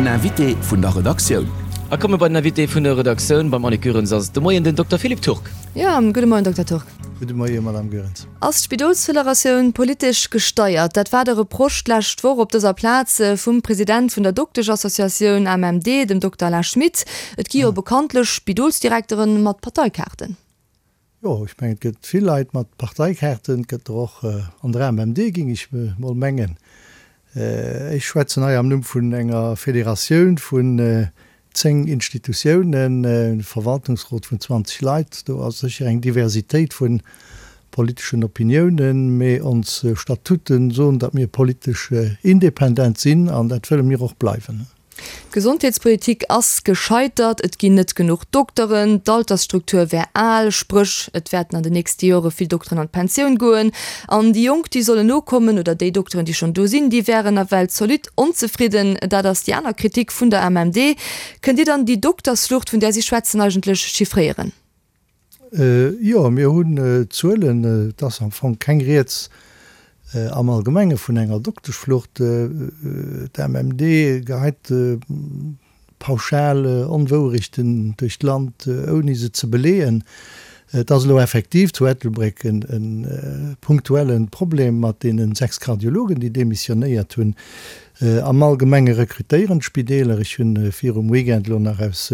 Invité vun der Redaktioun. A komme bei den Invité vun der Redaktioun. Beim Annick Goerens ass et de Moien den Dokter Philippe Turk. Jo, gudde Moien, Dokter Turk. Gudde Moie, Madame Goerens. Ass d'Spidolsfederatioun politesch gesteiert? Dat war de Reproche d'lescht Woch op dëser Plaz vum President vun der Dokteschassociatioun AMMD, dem Dokter Alain Schmit. Et gi jo bekanntlech Spidolsdirekteren mat Parteikaarten. Jo, ech mengen, et gëtt vill Leit mat Parteikaarten. Et gëtt der och an der AMMD, géing ech mol mengen. Ech schwätzen hei am Numm vun enger Federatioun vun 10 Institutiounen, e Verwaltungsrot vun 20 Leit. Do ass sécher eng Diversitéit vu politeschen Opiniounen, mee ons Statuten soen, datt mir politesch independent sinn an dat wëlle mir och bleiwen. D'Gesondheetspolitik ass gescheitert, et ginn net genuch Dokteren, d'Altersstruktur wär al, spréch et wäerten an den nächste Jore vill Dokteren an d'Pensioun goen an déi Jonk, déi sollen nokommen oder déi Dokteren, déi schonn do sinn, déi wären nawell zolidd onzefridden. Dat ass déi aner Kritik vun der AMMD. Kënnt Dir dann déi Doktersflucht, vun där si schwätzen, eigentlech chiffréieren? Jo, mir hunn Zuelen. Et ass am Fong keng Rieds am Allgemenge vun enger Dokteschflucht. D'AMMD geheit pauschal Onwouerechten duerch d'Land, ouni se ze beleeën. Et ass elo effektiv zu Ettelbréck e punktuelle Problem mat deene 6 Kardiologen, déi demissionéiert hunn. Am Allgemenge rekrutéieren d'Spideeler. Ech hunn virum Weekend elo nach aus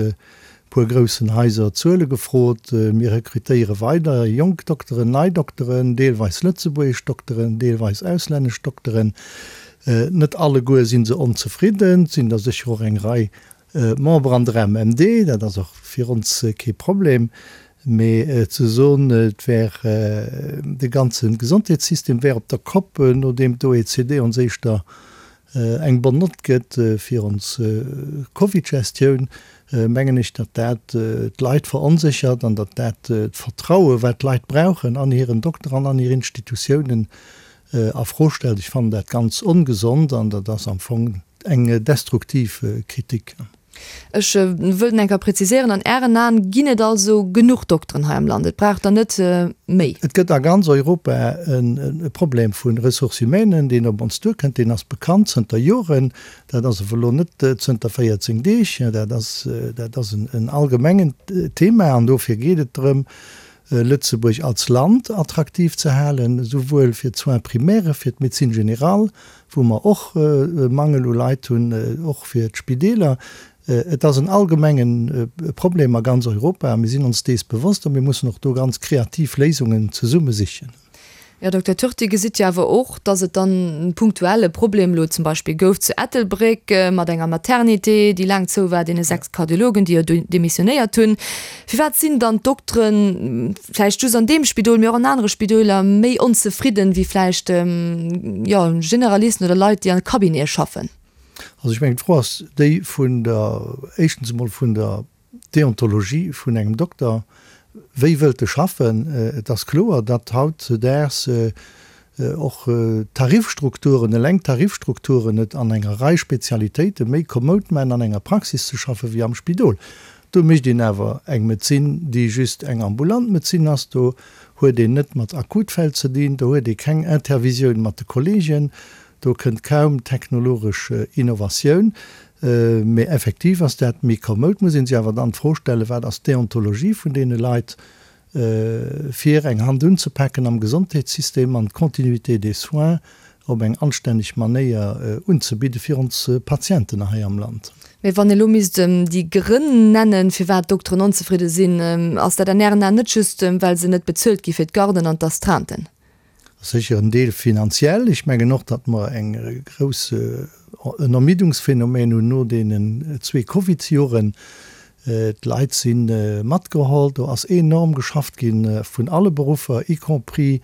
puer groussen Haiser Zuele gefrot. Mir rekrutéiere weider jonk Dokteren, nei Dokteren, deelweis lëtzebuergesch Dokteren, deelweis auslännesch Dokteren. Net alleguer si se onzefridden. Et sinn der sécher och eng Rei Member an der AMMD. Dat ass och fir ons kee Problem. Mee ze soen, et wär de ganze Gesondheetssystem wär op der Kopp, nodeem d'OECD ons éischter eng bonne Nott gëtt fir ons Covid-Gestioun, mengen ech, datt dat d'Leit veronséchert an datt dat d'Vertraue wat d'Leit brauchen an hiren Dokter an an hir Institutiounen a Fro stellt. Ech fannen dat ganz ongesond an dat ass am Fong eng destruktiv Kritik. Ech wëllt enker präziséieren, An Ären Aen ginn et also genuch Dokteren hei am Land, et brauch der net méi? Et gëtt a ganz Europa e Problem vu Ressources humaines, deen op ons duerkënnt. Deen ass bekannt zënter Joren. Dat ass awer elo net zënter 14 Deeg. Dat ass, dat ass en allgemengent Thema an dofir geet et drëm, Lëtzebuerg als Land attraktiv ze halen, esouwuel fir d'Soins primaires, fir d'Médecine générale, wou mer och e Mangel u Leit hunn, och fir d'Spideeler. Et ass en allgemenge Problem a ganz Europa a mir sinn ons dees bewosst a mir mussen och do ganz kreativ Léisungen zesumme sichen. Här Dokter Turk, Dir gesitt jo awer och, dass et dann punktuell e Problem elo zum Beispill gouf zu Ettelbréck mat enger Maternité, déi laang zou war, deene 6 Kardiologen, déi jo demissionéiert hunn. Firwat sinn dann d'Dokteren, vläicht just an deem Spidol, mee och an anere Spidoler, méi onzefridden wéi vläicht, jo, Generalisten oder Leit, déi an Cabinete schaffen? Also ech mengen, d'Fro ass déi vun der, éischtens emol vun der Deontologie vun engem Dokter, wéi wëllt e schaffen? Et ass kloer, datt hautzedaags och d'Tarifstrukturen, eleng d'Tarifstrukturen et an enger Rei Spezialitéite méi komoud maachen, an enger Praxis ze schaffe wéi am Spidol. Do mécht een awer eng Medezin, déi just eng ambulant Medezin ass. Do huet een net mat Akutfäll ze dinn, do huet ee keng Intervisioun mat de Kollegen, Do kënnt kaum technologesch Innovatioun, mee effektiv ass dat méi komoud. Muss ee sech awer dann d'Fro stellen, Wat ass d'Deontologie vun deene Leit, fir eng Hand unzepaken am Gesondheetssystem an d'Continuité des soins op eng anstänneg Manéier unzebidde fir ons Patienten hei am Land? Mee wann ee lo misst déi Grënn nennen, firwat d'Dokteren onzefridde sinn, ass dat an Ären Aen net just, well se net bezuelt gi fir d'Garden an d'Astreinten? Sécher en Deel finanziell. Ech mengen och, datt mer eng grouss, en Ermiddungsphänomen hunn no deenen zwee Covidsjoren. D'Leit si matgeholl. Do ass enorm geschafft gi vun alle Beruffer, y compris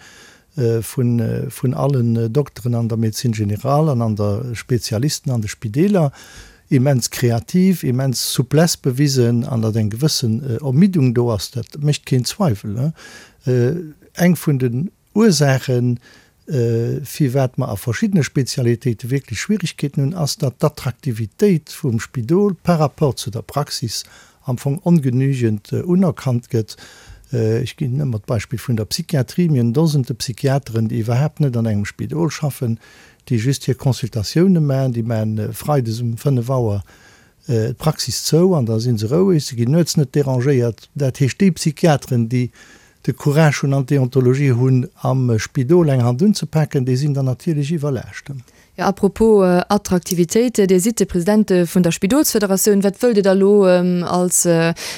vun allen Dokteren an der Médecine générale an an der Spezialisten an de Spideeler. Immens kreativ, immens Souplesse bewisen an datt eng gewëssen Ermiddung do ass, dat mécht keen Zweiwel. Eng vun den Ursaachen, firwat mer a verschiddene Spezialitéite wierklech Schwierigkeeten hunn, ass, datt d'Attraktivitéit vum Spidol par rapport zu der Praxis am Fong ongenügend unerkannt gëtt. Ech ginn ëmmer d'Beispill vun der Psychiatrie. Mir hunn Dosende Psychiateren, déi iwwerhaapt net an engem Spidol schaffen, déi just hir Consultatioune maachen. Déi maachen freides um 5 Auer. d'Praxis zou an da si se roueg, se ginn nuets net derangéiert. Dat heescht, déi Psychiateren, déi de Courage hunn an d'Deontologie hunn, am Spidol eng Hand unzepaken, déi sinn dann natierlech iwwerlaascht. Jo, à propos Attraktivitéit, Dir sidd de President vun der Spidolsfederatioun. Wat wëllt Dir da elo als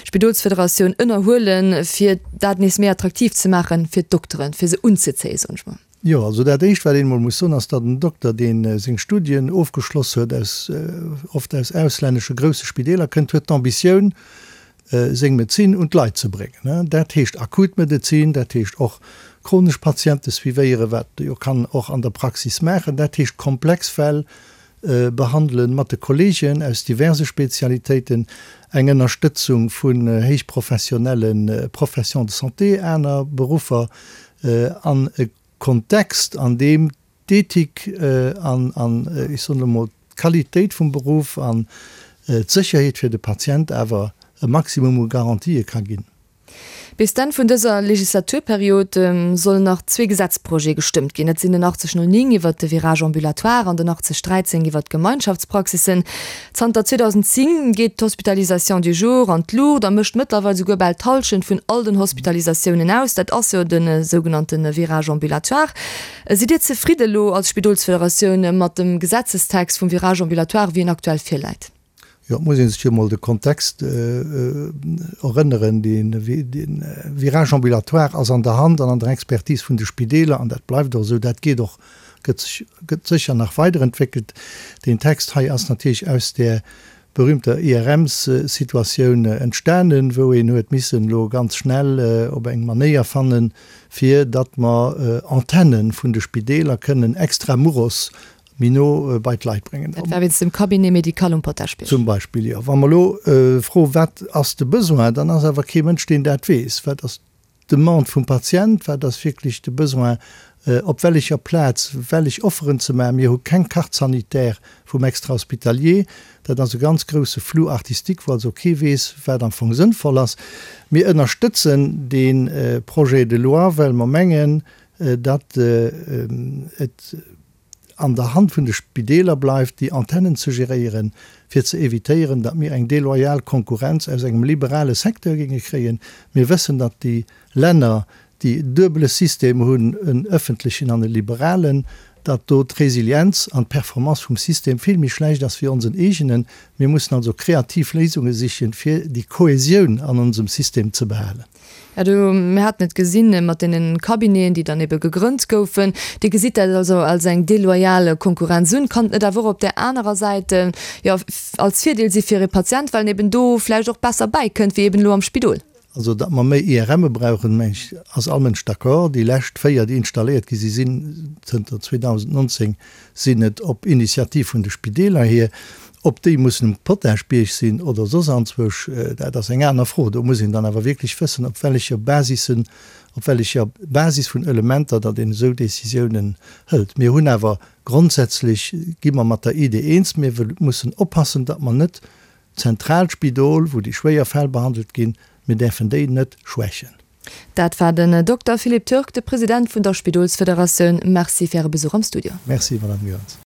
Spidolsfederatioun ënnerhuelen, fir dat nees méi attraktiv ze maachen fir d'Dokteren, fir se unzezéien, soen ech mol? Jo, also dat Éischt, wat een emol muss soen, ass, datt en Dokter, dee seng Studien ofgeschloss huet, aus, oft aus auslännesche grousse Spideeler kënnt, huet d'Ambitioun, seng Medezin un d'Leit ze bréngen. Dat heescht akut Medezin, dat heescht och chronesch Patiente suivéieren, wat e jo kann och an der Praxis maachen, dat heescht komplex Fäll behandelen mat de Kolleegen aus diverse Spezialitéiten, eng Ënnerstëtzung vun héichprofessionelle Professions de santé, aner Beruffer an e Kontext, an deem d'Ethik an, an ech soen elo mol, d'Qualitéit vum Beruff an d'Sécherheet fir de Patient awer e Maximum u Garantië ka ginn. Bis d'Enn vun dëser Legislaturperiod sollen nach zwee Gesetzprojete gestëmmt ginn. Dat sinn den 8009 iwwert de Virage ambulatoire an den 8013 iwwert d'Gemeinschaftspraxissen. Zanter 2010 geet d'Hospitalisation du jour an d'Luucht a mécht mëttlerweil souguer bal d'Hallschent vun all den Hospitalisatiounen aus. Dat ass jo de sougenannte Virage ambulatoire. Sidd Dir zefridde elo als Spidolsfederatioun mat dem Gesetzestext vum Virage ambulatoire, wéi en aktuell virläit? Jo, et muss ee sech jo emol de Kontext erënneren. De Virage ambulatoire ass an der Hand an an der Expertise vun de Spideeler an dat bleift och esou. Dat geet och, gëtt sech, gëtt sécher nach weiderentwéckelt. Deen Text hei ass natierlech aus där berühmter IRMs-Situatioun entstanen, wou een huet missen elo ganz schnell op eng Manéier fannen, fir datt mer Antenne vun de Spideeler kënnen extra muros méi no bei d'Leit bréngen. Dat war wéinst dem Cabinet médical um Potaschbierg. Zum Beispill, jo. Wa mer elo froen, wat ass de Besoin, dann ass awer kee Mënsch, deen dat weess. Wat ass d'Demande vum Patient? Wat ass wierklech de Besoin? Op wellecher Plaz wellech Offeren ze maachen? Mir hu keng Carte sanitaire vum Extra-hospitalier. Dat ass e ganz grousse Flou artistique, wou also kee weess, wat am Fong sënnvoll ass. Mir ënnerstëtzen dee Projet de loi, well mer mengen, datt et, an der Hand vun de Spideeler bleift, déi Antennen ze geréieren, fir ze evitéieren, datt mir eng deloyal Konkurrenz aus engem liberale Secteur géinge kréien. Mir wëssen, datt déi Länner, déi e duebele System hunn, en öffentlechen an e liberalen, datt do d'Resilienz an d'Performance vum System vill méi schlecht ass wéi onsen eegenen. Mir mussen also kreativ Léisunge sichen, fir déi Kohäsioun an onsem System ze behalen. Ja, do, mir haten et gesinn mat deenen Cabineten, déi dann ebe gegrënnt goufen. Dir gesitt dat also als eng deloyal Konkurrenz un. Kann et net awer och op där anerer Säit, jo, als Virdeel si fir e Patient, well en eben do vläicht och besser bäikënnt wéi eben elo am Spidol? Also, datt mer méi IRMe brauchen, meng ech, ass all Mënsch d'accord. Déi lescht véier, déi installéiert gi si sinn zënter 2019, sinn et op Initiativ vun de Spideeler hier. Ob déi mussen um Potaschbierg sinn oder soss anzwousch, dat ass eng aner Fro. Do muss een dann awer wierklech wëssen, op wellecher Basissen, op wellecher Basis vun Elementer datt een esou Décisiounen hëlt. Mir hunn awer grondsätzlech, gi mer mat der Idee eens, mir mussen oppassen, datt mer net d'zentraalt Spidol, wou déi schwéier Fäll behandelt ginn, mir däerfen déi net schwächen. Dat war den Dokter Philippe Turk, de President vun der Spidolsfederatioun. Merci fir Äre Besuch am Studio. Merci, Madame Goerens.